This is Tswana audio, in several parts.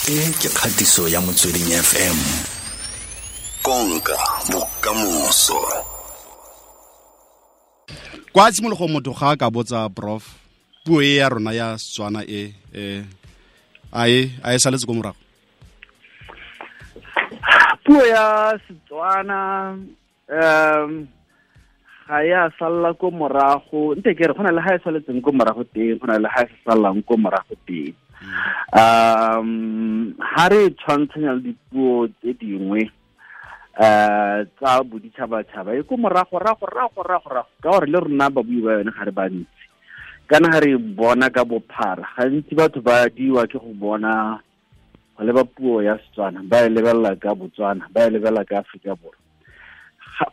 E ke kgatiso ya Motsweding FM. Konka bokamoso. Kwa tshimologong motho ga a ka botsa prof puo e ya rona ya Setswana e a e saletse ko morago? Puo ya Setswana ga ya salla ko morago, nte ke re go na le ga e saletseng ko morago teng, go na le ga e sa sallang ko morago teng. Ha re tshwantshanya le dipuo tse dingwe tsa boditšhabatšhaba e ko morago rago rago rago rago, ka gore le rona babui ba yone ga re bantsi. Kana ga re bona ka bophara, gantsi batho ba diwa ke go bona go leba puo ya Setswana, ba e lebelela ka Botswana, ba e lebelela ka Aforika Borwa.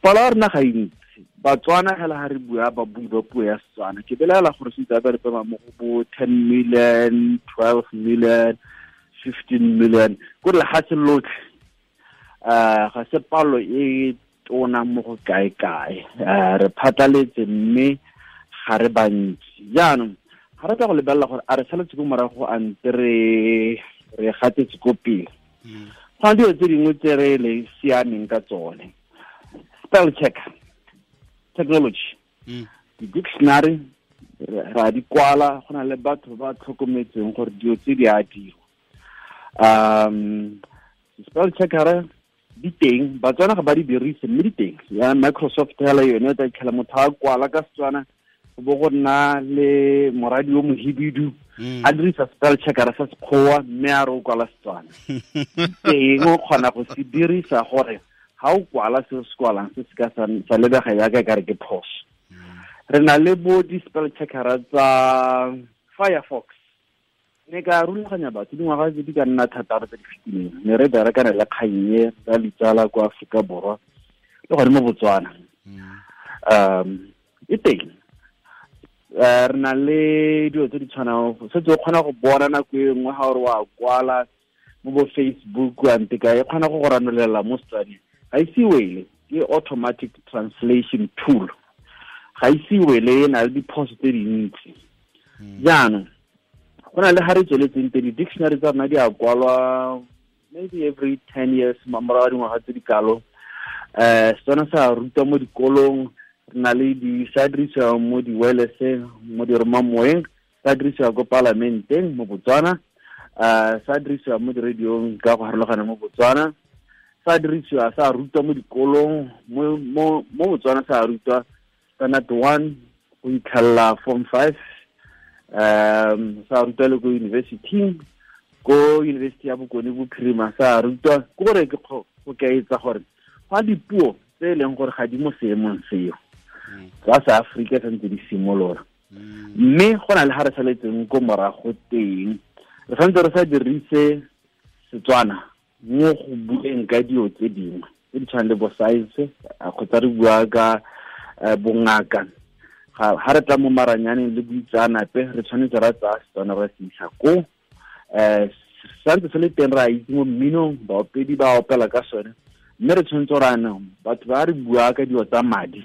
Palo ya rona ga e ntsi. Batswana hela ha re bua ba bui ba puo ya Setswana, ke belaela gore se itse ba re pema mo go bo 10 million, 12 million, 15 million, ko lefatshe lotlhe. Ga se palo e tona mo go kae kae. Re phatlaletse mme ga re bantsi. Jaanong ga re tla go lebelela gore a re saletse ko morago a ntse re gatetse ko pele. Go na dilo tse dingwe tse re le siameng ka tsone. Spell check technology, di-dictionary ra di kwala, go na le batho ba tlhokometseng gore dilo tse di a dirwa. Spell checker di teng, Batswana ga ba di dirise mme di teng. Ya Microsoft hela yone o tla itlhela motho a kwala ka Setswana, go bo go nna le moradi o mohibidu a dirisa spell checker sa Sekgowa mme a re o kwala Setswana. Teng o kgona go se dirisa gore ha o kwala se se kwalang se se ka sa lebega jaaka e kare ke phoso. Re na le bo di-spell checkera tsa Firefox. Ne ka rulaganya batho dingwaga tse di ka nna thataro tse di fetileng, ne re berekana le kgang e tsa ditsala kwa Aforika Borwa le gone mo Botswana. E teng. Re na le dilo tse di tshwanang, setse o kgona go bona nako e nngwe ga o re wa kwala mo bo Facebook ante ka e kgona go go ranolela mo Setswaneng. Ga ise wele, ke automatic translation tool. Ga ise wele, e na le diphoso tse dintsi. Jaanong go na le ga re tsweletseng teng, di-dictionary tsa rona di a kwalwa maybe every 10 years, morago ga dingwaga tse di kalo. Setswana sa rutwa mo dikolong, re na le di sa dirisiwa mo di-wirelesseng, mo diromamoeng, sa dirisiwa ko palamenteng mo Botswana, sa dirisiwa mo di-radiong ka go harologana mo Botswana, sa dirisiwa sa rutwa mo dikolong mo Botswana, sa rutwa standard 1 go itlhella form 5, sa rutwa le ko university, ko University ya Bokone Bophirima sa rutwa. Ke gore ke go kaetsa gore ga dipuo tse e leng gore ga di mo seemong seo tsa sa Aforika santse di simolola, mme go na le ga re saletseng ko morago teng, re santse re sa dirise Setswana mo go bueng ka dilo tse dingwe tse di tshwanang le bo science kgotsa re bua ka bongaka. Ga re tla mo maranyaneng le boitseanape, re tshwanetse ra tsaya Setswana ra se isa ko. Santse se le teng, re a itse mo mminong, baopedi ba opela ka sone, mme re tshwanetse ra anong batho ba re bua ka dilo tsa madi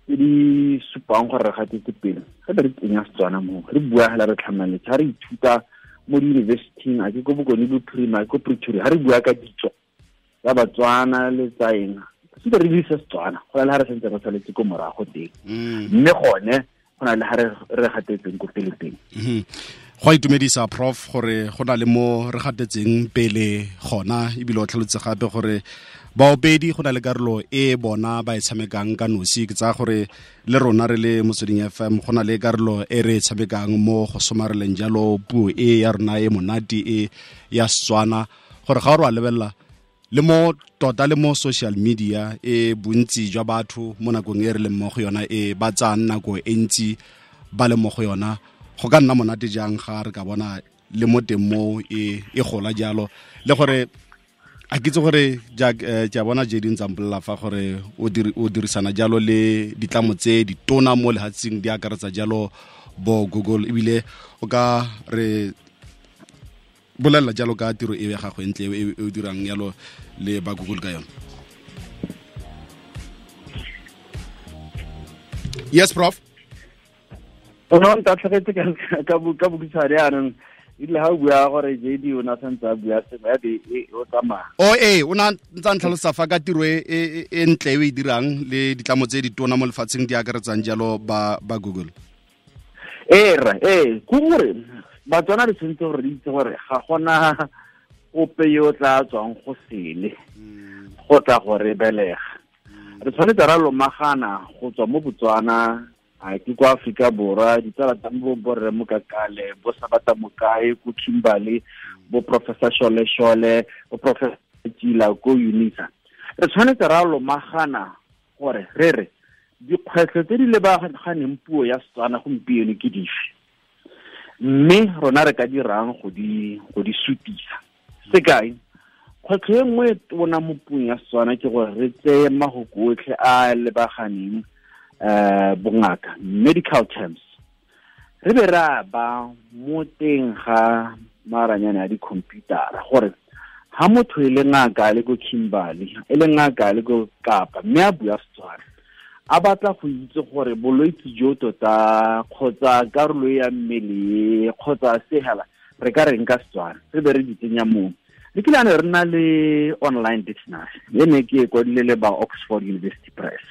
tse di supang gore re gatetse pele, gape re tsenya Setswana mo, re bua hela re tlhamaletse. Ga re ithuta mo di-university-ing, a ke ko Bokone Bophirima, ko Pretoria, ga re bua ka ditso tsa Batswana le tsa eng, sentse re dirisa Setswana. Go na le ga re santse re saletse ko morago teng, mme gone go na le ga re gatetseng ko pele teng. Go a itumedisa prof gore go na le mo re gatetseng pele gona, ebile o tlhalotse gape gore baopedi go na le karolo e bona ba e tshamekang ka nosi. Ke tsaya gore le rona re le Motsweding FM go na le karolo e re e tshamekang mo go somareleng jalo puo e ya rona e monate e ya Setswana, gore ga o re wa lebelela le mo tota le mo social media e bontsi jwa batho mo nakong e re leng mo go yona e ba tsayang nako e ntsi ba le mo go yona, go ka nna monate jang ga re ka bona le mo teng mo e gola jalo. Le gore a ke itse gore ke a bona Jadine Zambolela fa gore o dirisana jalo le ditlamo tse ditona mo lehatsheng di akaretsa jalo bo Google, ebile o ka re bolelela jalo ka tiro e ya gago ntle e o dirang jalo le ba Google ka yone. Yes prof. O no ntatlhegetse ka bokhutshwane jaanong. Ile ha o bua gore JD o na santse a bua sengwe ya be o tsamaya. O e o na ntse ntlhalosa fa ka tiro e ntle e dirang le ditlamo tse di tona mo lefatsheng di akaretsang jalo ba Google. Ee, ke gore Batswana re tshwanetse gore re itse gore ga gona ope yo o tla tswang go sele go tla go re belega. Re tshwanetse ra lomagana go tswa mo Botswana, a ke kwa Afrika Borwa, ditsala tsa mo borre Mokakale, bo Sabata Mokae ko Kimberley, bo Professor Shole Shole, bo Professor Tshila ko UNISA. Re tshwanetse ra lomagana gore re re dikgwetlho tse di lebaganeng puo ya Setswana gompieno ke dife, mme rona re ka dirang go di sutisa. Sekai, kgwetlho e nngwe e tona mo puong ya Setswana ke gore re tseye mahoko otlhe a lebaganeng bongaka, medical terms, re be ra ba mo teng ga maranyane a di-computer-a gore ha motho e le ngaka a le ko Kimberley, e le ngaka a le ko Kapa, mme a bua Setswana, a batla go itse gore bolwetse jo tota kgotsa karolo ya mmele kgotsa sehela re ka reng ka Setswana, re be re di tsenya moo. Le kile re na le online dictionary e ne ke e kwadile le ba Oxford University Press.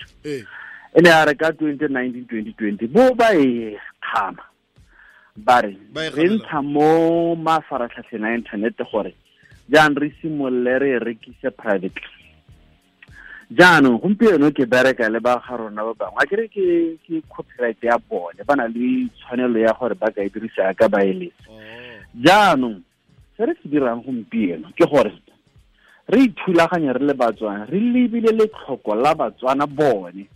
E ne a re ka 2019-2020 bo ba e kgama, ba re re ntsha mo mafaratlhatlheng a internet gore jaanong re simolole re rekise privately. Jaanong gompieno ke bereka le ba ga rona ba bangwe, a kere ke copyright ya bone, ba na le tshwanelo ya gore ba ka e dirisa ka ba eletsa. Jaanong se re se dirang gompieno ke gore re ithulaganya re le Batswana, re lebile letlhoko la Batswana bone.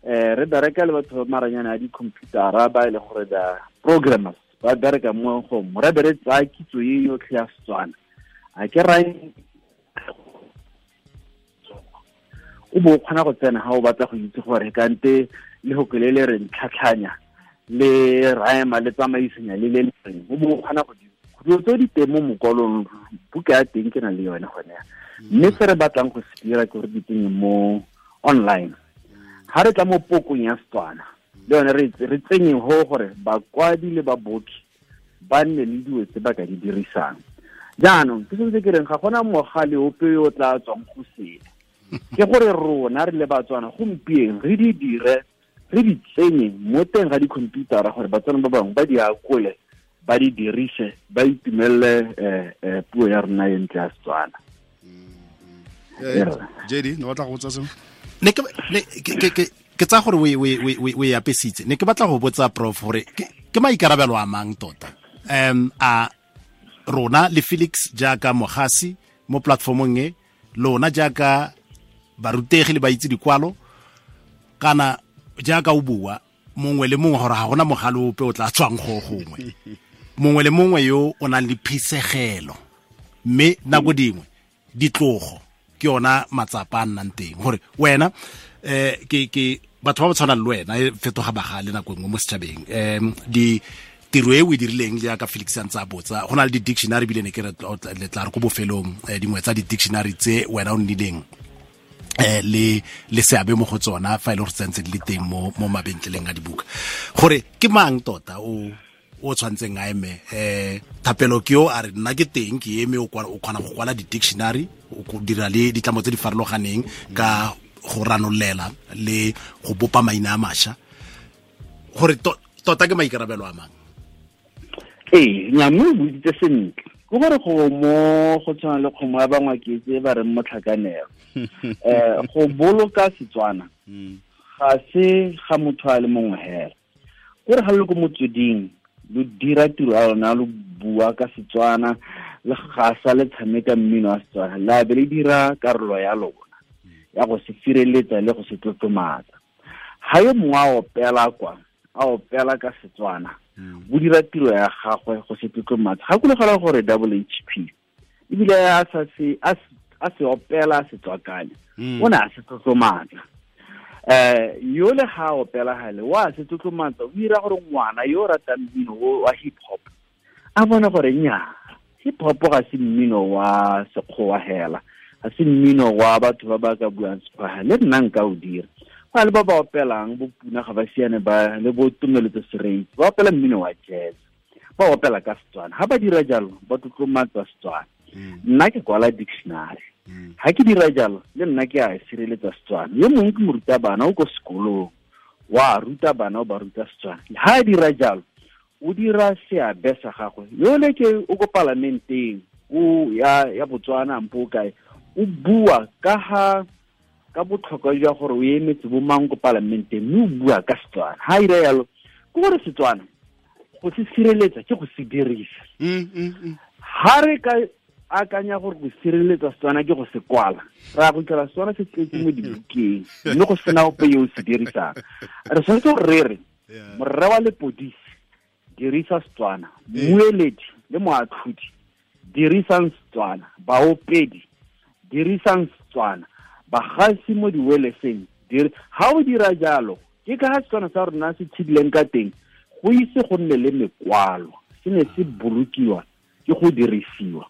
Re bereka le batho ba maranyane a di-computer-a ba e le gore ba programmers ba bereka mo go re be re tsaya kitso e yotlhe ya Setswana. A ke rae o bo kgona go tsena ha o batla go itse gore kante le go le le re ntlhatlhanya le raema le tsamaisanya le le reng, o bo kgona go dilo tse di teng mo mokwalong, buka ya teng ke na le yone gone ya. Mme se re batlang go se dira ke gore di tsenye mo online. Ha re tla mo pokong ya Setswana le yone re tsenye ho gore bakwadi le baboki ba nne le dilo tse ba ka di dirisang. Jaanong ke sentse ke reng ga gona mogale ope yo o tla tswang go sele, ke gore rona re le Batswana gompieno re di dire, re di tsenye mo teng ga di-computer-a gore Batswana ba bangwe ba di akole, ba di dirise, ba itumelele puo ya rona e ntle ya Setswana. JD, no batla go botsa sengwe? Ne ke tsa gore o e apesitse. Ne ke batla go botsa Prof gore ke maikarabelo a mang tota a rona le Felix jaaka mogasi mo platformong e, lona jaaka barutegi le baitse dikwalo, kana jaaka o bua mongwe le mongwe gore ga gona mogale ope o tla tswang go gongwe, mongwe le mongwe yo o nang le phisegelo, mme nako dingwe ditlogo ke yona matsapa a nnang teng gore wena ke batho ba ba tshwanang le wena e fetoga bagale nako nngwe mo setšhabeng. Di tiro e o e dirileng jaaka Felix a ntse a botsa, go na le di-dictionary ebile ne ke re le tla re ko bofelong dingwe tsa di-dictionary tse wena o nnileng le seabe mo go tsona fa e le gore tsentse di le teng mo mabentleleng a dibuka, gore ke mang tota o tshwantseng a eme. Thapelo ke yo a re nna ke teng ke eme, o kgona go kwala di-dictionary, o dira le ditlamo tse di farologaneng ka go ranolela le go bopa maina a mašwa, gore tota ke maikarabelo a mang? Ee, mme o buisitse sentle. Ke gore go mo go tshwana le kgomo ya bangwaketse ba reng motlhakanelo. Go boloka Setswana ga se ga motho a le mongwe hela. Kore ga le ko motsweding lo dira tiro ya lona, lo bua ka Setswana, le gasa le tshameka mmino wa Setswana, la be le dira karolo ya lona ya go se sireletsa le go se tlotlomatsa. Ha yo mongwe a opela kwa, a opela ka Setswana, o dira tiro ya gagwe go se tlotlomatsa. Gakologela gore double HP ebile a se opela a se tswakanya, o ne a se tlotlomatsa. Yo le ga opela gale wa se tlotlomatsa, o dira gore ngwana yo o ratang mmino wa hip hop a bone gore nnyaa, hip hop ga se mmino wa sekgowa hela, ga se mmino wa batho ba ba ka buang sekgowa, le nna nka o dira. Go le ba ba opelang bo Puna ga ba siane ba le bo Tumeletso Sereitse, ba opela mmino wa jazz, Ba opela ka Setswana. Ha ba dira jalo, ba tlotlomatsa Setswana. Nna ke kwala dictionary. Ha ke dira jalo, le nna ke a sireletsa Setswana. Yo mongwe ke morutabana o ko sekolong, wa ruta bana o ba ruta Setswana. Ha a dira jalo, o dira seabe sa gagwe. Yole ke o ko palamenteng, o ya Botswana mpo kae, o bua ka ha ka botlhokwa jwa gore o emetse bo mang ko palamenteng, mme o bua ka Setswana. Ha a dira jalo, ke gore Setswana go se sireletsa ke go se dirisa. Ha re ka akanya gore go sireletsa Setswana ke go se kwala, ra go tlhola Setswana se tletse mo dibukeng, mme go sena ope yo o se dirisang. Re tshwanetse gore re re morre wa lepodisi dirisa Setswana, mmueledi le moatlhodi dirisang Setswana, baopedi dirisang Setswana, bagasi mo diweleseng. Ha o dira jalo, ke ka ha Setswana sa rona se tshidileng ka teng, go ise go nne le mekwalo, se ne se bolokiwa ke go dirisiwa.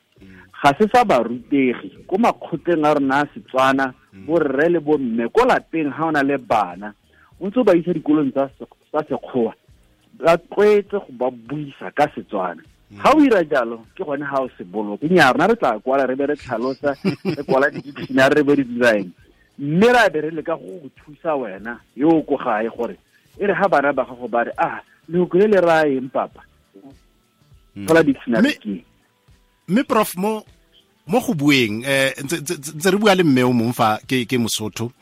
Ga se sa barutegi ko makgotleng a rona a Setswana, borre le bomme ko lapeng ha o na le bana, o ntse o ba isa dikolong tsa sekgowa, ba tlwaetse go ba buisa ka Setswana. Ha o dira jalo, ke gone ha o se boloke. Nnyaa, rona re tla kwala, re be re tlhalosa, re kwala di-dictionary, re be re dira eng, mme ra be re leka go go thusa wena yo o ko gae gore e re ha bana ba gago ba re, ah, lehoko le le raya eng papa, thola dictionary ke. Mme prof, mo go bueng, ntse re bua le mme o mongwe fa ke Mosotho,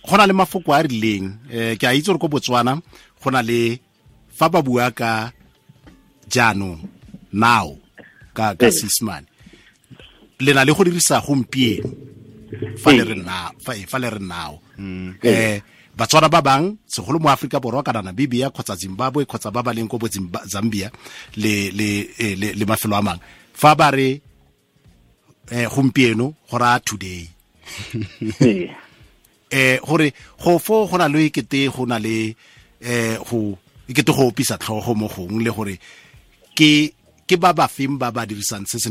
go na le mafoko a rileng, ke a itse gore ko Botswana go na le fa ba bua ka jaanong, now, ka Seesemane, le na le go dirisa gompieno fa le re now, fa le re now. Batswana ba bang segolo mo Afrika Borwa kana Namibia kgotsa Zimbabwe kgotsa ba ba leng ko bo Zambia le le le mafelo a mangwe, fa ba re gompieno go raya today. Gore go fo go na le ekete go na le go ekete go opisa tlhogo mo gongwe, le gore ke ba ba feng ba ba dirisang se se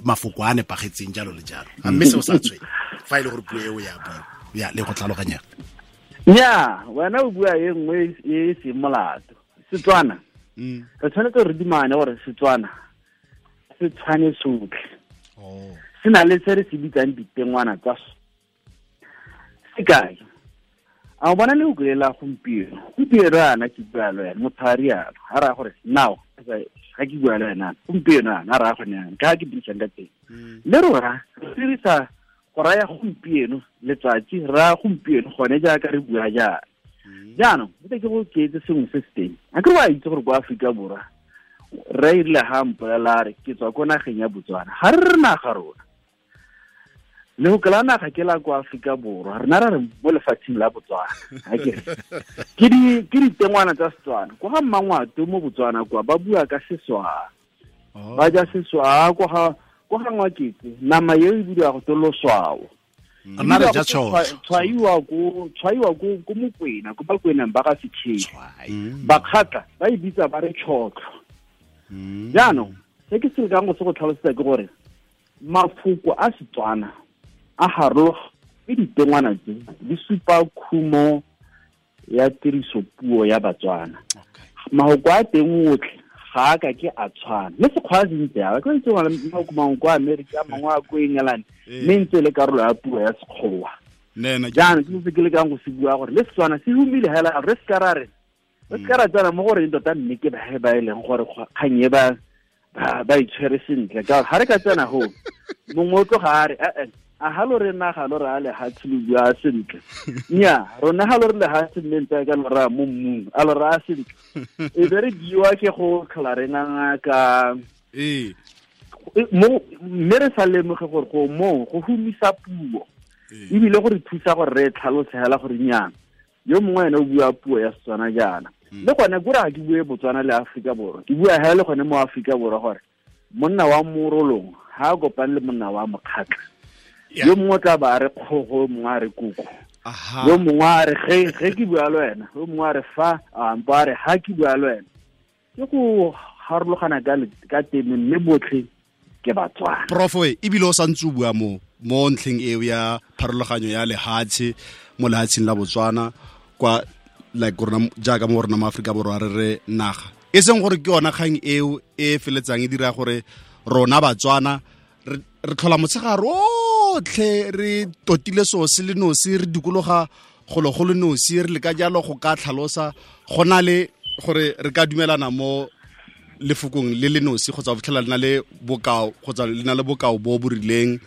mafoko a nepagetseng jalo le jalo. A mme seo sa tshwenye fa e le gore puo eo ya bua ya le go tlhaloganya. Nnyaa, wena o bua e nngwe e seng molato. Setswana, re tshwanetse re dumane gore Setswana se tshwane sotlhe. Se na le se re se bitsang ditengwana tsa sekai. A o bona lehoko le la gompieno? Gompieno yana ke bua le wena, motho a rialo, a raya gore now ga ke bua le wena gompieno yana, a raya gone yana, ka ga ke dirisang ka teng. Le rona re dirisa go raya gompieno letsatsi, re raya gompieno gone jaaka re bua jaana. Jaanong ke go keetse sengwe se se teng. A ke wa itse gore kwa Aforika Borwa re erile ha mpolela a re ke tswa ko nageng ya Botswana, ga re re naga rona. Lehoko la naga ke la kwa Aforika Borwa, rena re re mo lefatsheng la Botswana. Ke ditengwana tsa Setswana. Kwa ga Mmangwato mo Botswana kwa ba bua ka Seswaa, ba ja Seswaa. Kwa ga Ngwaketse nama eo e bidiwa go te loswao. Rena re ja tšhotlho. Tshwaiwa ko Mokwena, ko Bakweneng ba ga Setšhedi. Bakgatla ba e bitsa ba re tšhotlho. Jaanong se ke se lekang go se go tlhalosetsa ke gore mafoko a Setswana a harologana, ke ditengwana tse di supa khumo ya tirisopuo ya Batswana. Mahoko a teng otlhe ga a ka ke a tshwana. Le Sekgowa se ntse jalo, ke itse gore mahoko mangwe kwa Amerika, mangwe a ko England, mme ntse e le karolo ya puo ya Sekgowa. Jaanong ke se ke lekang go se bua gore le Setswana se humile hela, re se ka ra re re se ka ra tsena mo goreng tota mme ke ba e leng gore kgang e ba itshwere sentle. Ka ga re ka tsena go mongwe o tloga a re a ha lo re naga lo re a lehatshe lo bua sentle. Nnyaa, rona ha lo re lehatshe mme ntse ka lo raya mo mmung, a lo raya sentle. E be re biwa ke go tlhola re nganga ka mme re sa lemoge gore go moo go humisa puo, ebile go re thusa gore re tlhalose hela gore nnyaa, yo mongwe ene o bua puo ya Setswana jaana. Le gone kore ga ke bue Botswana le Aforika Borwa, ke bua hela le gone mo Aforika Borwa gore monna wa Morolong ha a kopane le monna wa Mokgatla, yo mongwe o tla ba a re kgogo, yo mongwe a re koko, yo mongwe a re ge ke bua le wena, yo mongwe a re fa, ampo a re ha ke bua le wena. Ke go harologana ka teme, mme botlhe ke Batswana. Prof, ebile o santse o bua mo ntlheng eo ya pharologanyo ya lehatshe mo lehatsheng la Botswana kwa like rona jaaka mo rona mo Aforika Borwa re re naga. E seng gore ke yona kgang eo e feletsang e dira gore rona Batswana re tlhola motshegare otlhe re totile seo se le nosi, re dikologa golo go le nosi, re le ka jalo go ka tlhalosa go na le gore re ka dumelana mo lefokong le le nosi kgotsa go fitlhela le na le bokao kgotsa le na le bokao bo bo rileng,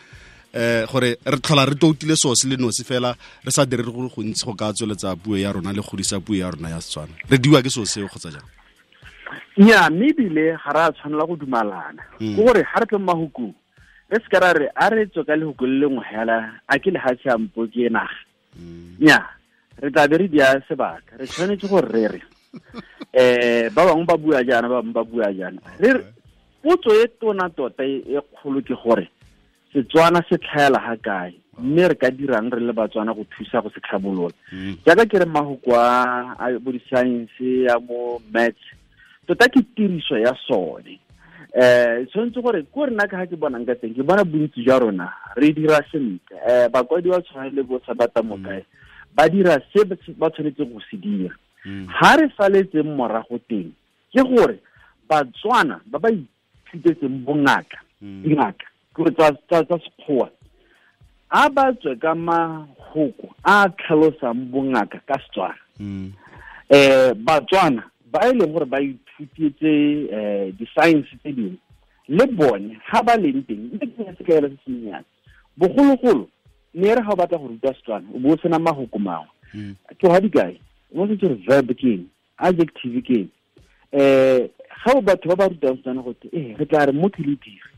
gore re tlhola re toutile seo se le nosi fela re sa dire go gontsi go ka tsweletsa puo ya rona le godisa puo ya rona ya Setswana. Re diwa ke seo seo kgotsa jang? Nya, mme ebile ga re a tshwanela go dumalana. Ke gore ga re tle mo mahokong re se ka ra re a re tswe ka lehoko le lengwe hela, a ke lehatshe a mpo ke naga. Nya, re tla be re dia sebaka. Re tshwanetse gore re re ba bangwe ba bua jaana, ba bangwe ba bua jaana. Re potso e tona tota e kgolo ke gore Setswana se tlhaela ga kae, mme re ka dirang re le Batswana go thusa go se tlhabolola. Jaaka ke re mahoko a bo di-science ya mo maths, tota ke tiriso ya sone. Tshwanetse gore ko rena ka ga ke bonang ka teng, ke bona bontsi jwa rona re dira sentle. Bakwadi ba tshwana le bo Sabata Mokae ba dira se ba tshwanetseng go se dira. Ha re saletseng morago teng ke gore Batswana ba ba ithutetseng bongaka, dingaka ke tsa sekgowa, a ba tswe ka mahoko a tlhalosang bongaka ka Setswana. Batswana ba e leng gore ba ithutetse di-science tse dingwe le bone ga ba leng teng, mme ke se kaela se sennyane. Bogologolo ne re ga o batla go ruta Setswana o bo o sena mahoko mangwe. Ke ga dikai, o setse re verb ke eng, adjective ke eng. Ga o batho ba ba rutang Setswana go te re tla re mo ke le dire,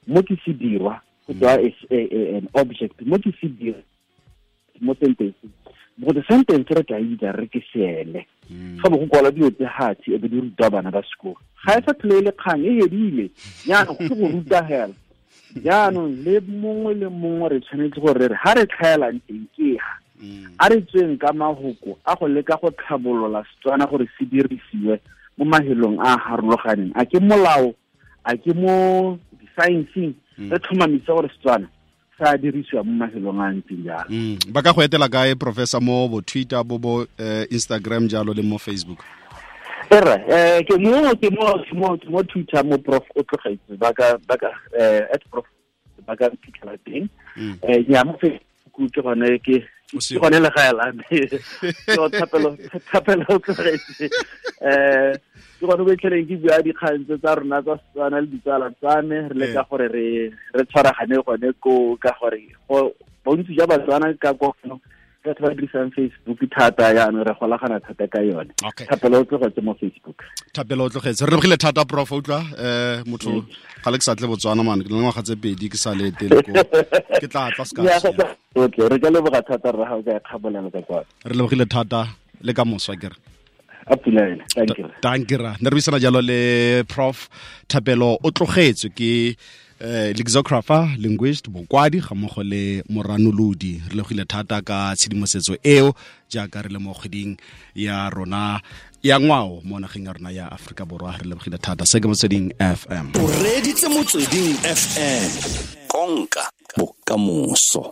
mo ke se dirwa, go tswa an object, mo ke se dirwa mo sentence. Go the sentence re tla itse re ke seele. Ga bo go kwala dilo tse hatsi e be di ruta bana ba sekolo. Ga e sa tlhole le kgang e hedile. Jaanong go go ruta hela. Jaanong le mongwe le mongwe re tshwanetse gore re ha re tlhaelang teng ke ha. A re tsweng ka mahoko a go leka go tlhabolola Setswana gore se dirisiwe mo mahelong a harologaneng. A ke molao, a ke mo di-science-eng, re tlhomamise gore Setswana sa dirisiwa mo mafelong a ntseng jalo. Ba ka go etela kae, Professor, mo bo Twitter, bo Instagram jalo le mo Facebook? Erra, ke mo Twitter mo Prof o tlogetse, ba ka at Prof ba ka fitlhela teng. Ya mo Facebook ke gone ke gone le gae la me. So Thapelo o tlogetse. Ke gone bo itlheleng ke bua dikgang tse tsa rona tsa Setswana le ditsala tsa me, re leka gore re tshwaragane gone ko ka gore bontsi jwa Batswana ka kono batho ba dirisang Facebook thata, jaanong re golagana thata ka yone. Thapelo o tlogetse mo Facebook. Thapelo o tlogetse. Re lebogile thata, Prof, utlwa motho ga le ke sa tle Botswana man, ke le ngwaga tse 2 ke sa le etele ko. Ke tla tla se ka. Okay, re ka leboga thata rra ga o ka kgabolela ka kwa. Re lebogile thata le ka moswa ke re. Thank you. Thank you. Ne re buisana jalo le Prof Thapelo o tlogetswe ke lexicographer, linguist, mokwadi ga mmogo le moranolodi. Re lebogile thata ka tshedimosetso eo jaaka re le mo kgweding ya rona ya ngwao mo nageng ya rona ya Afrika Borwa. Re lebogile thata. Se ke Motsweding FM. O reditse Motsweding FM. Konka bokamoso.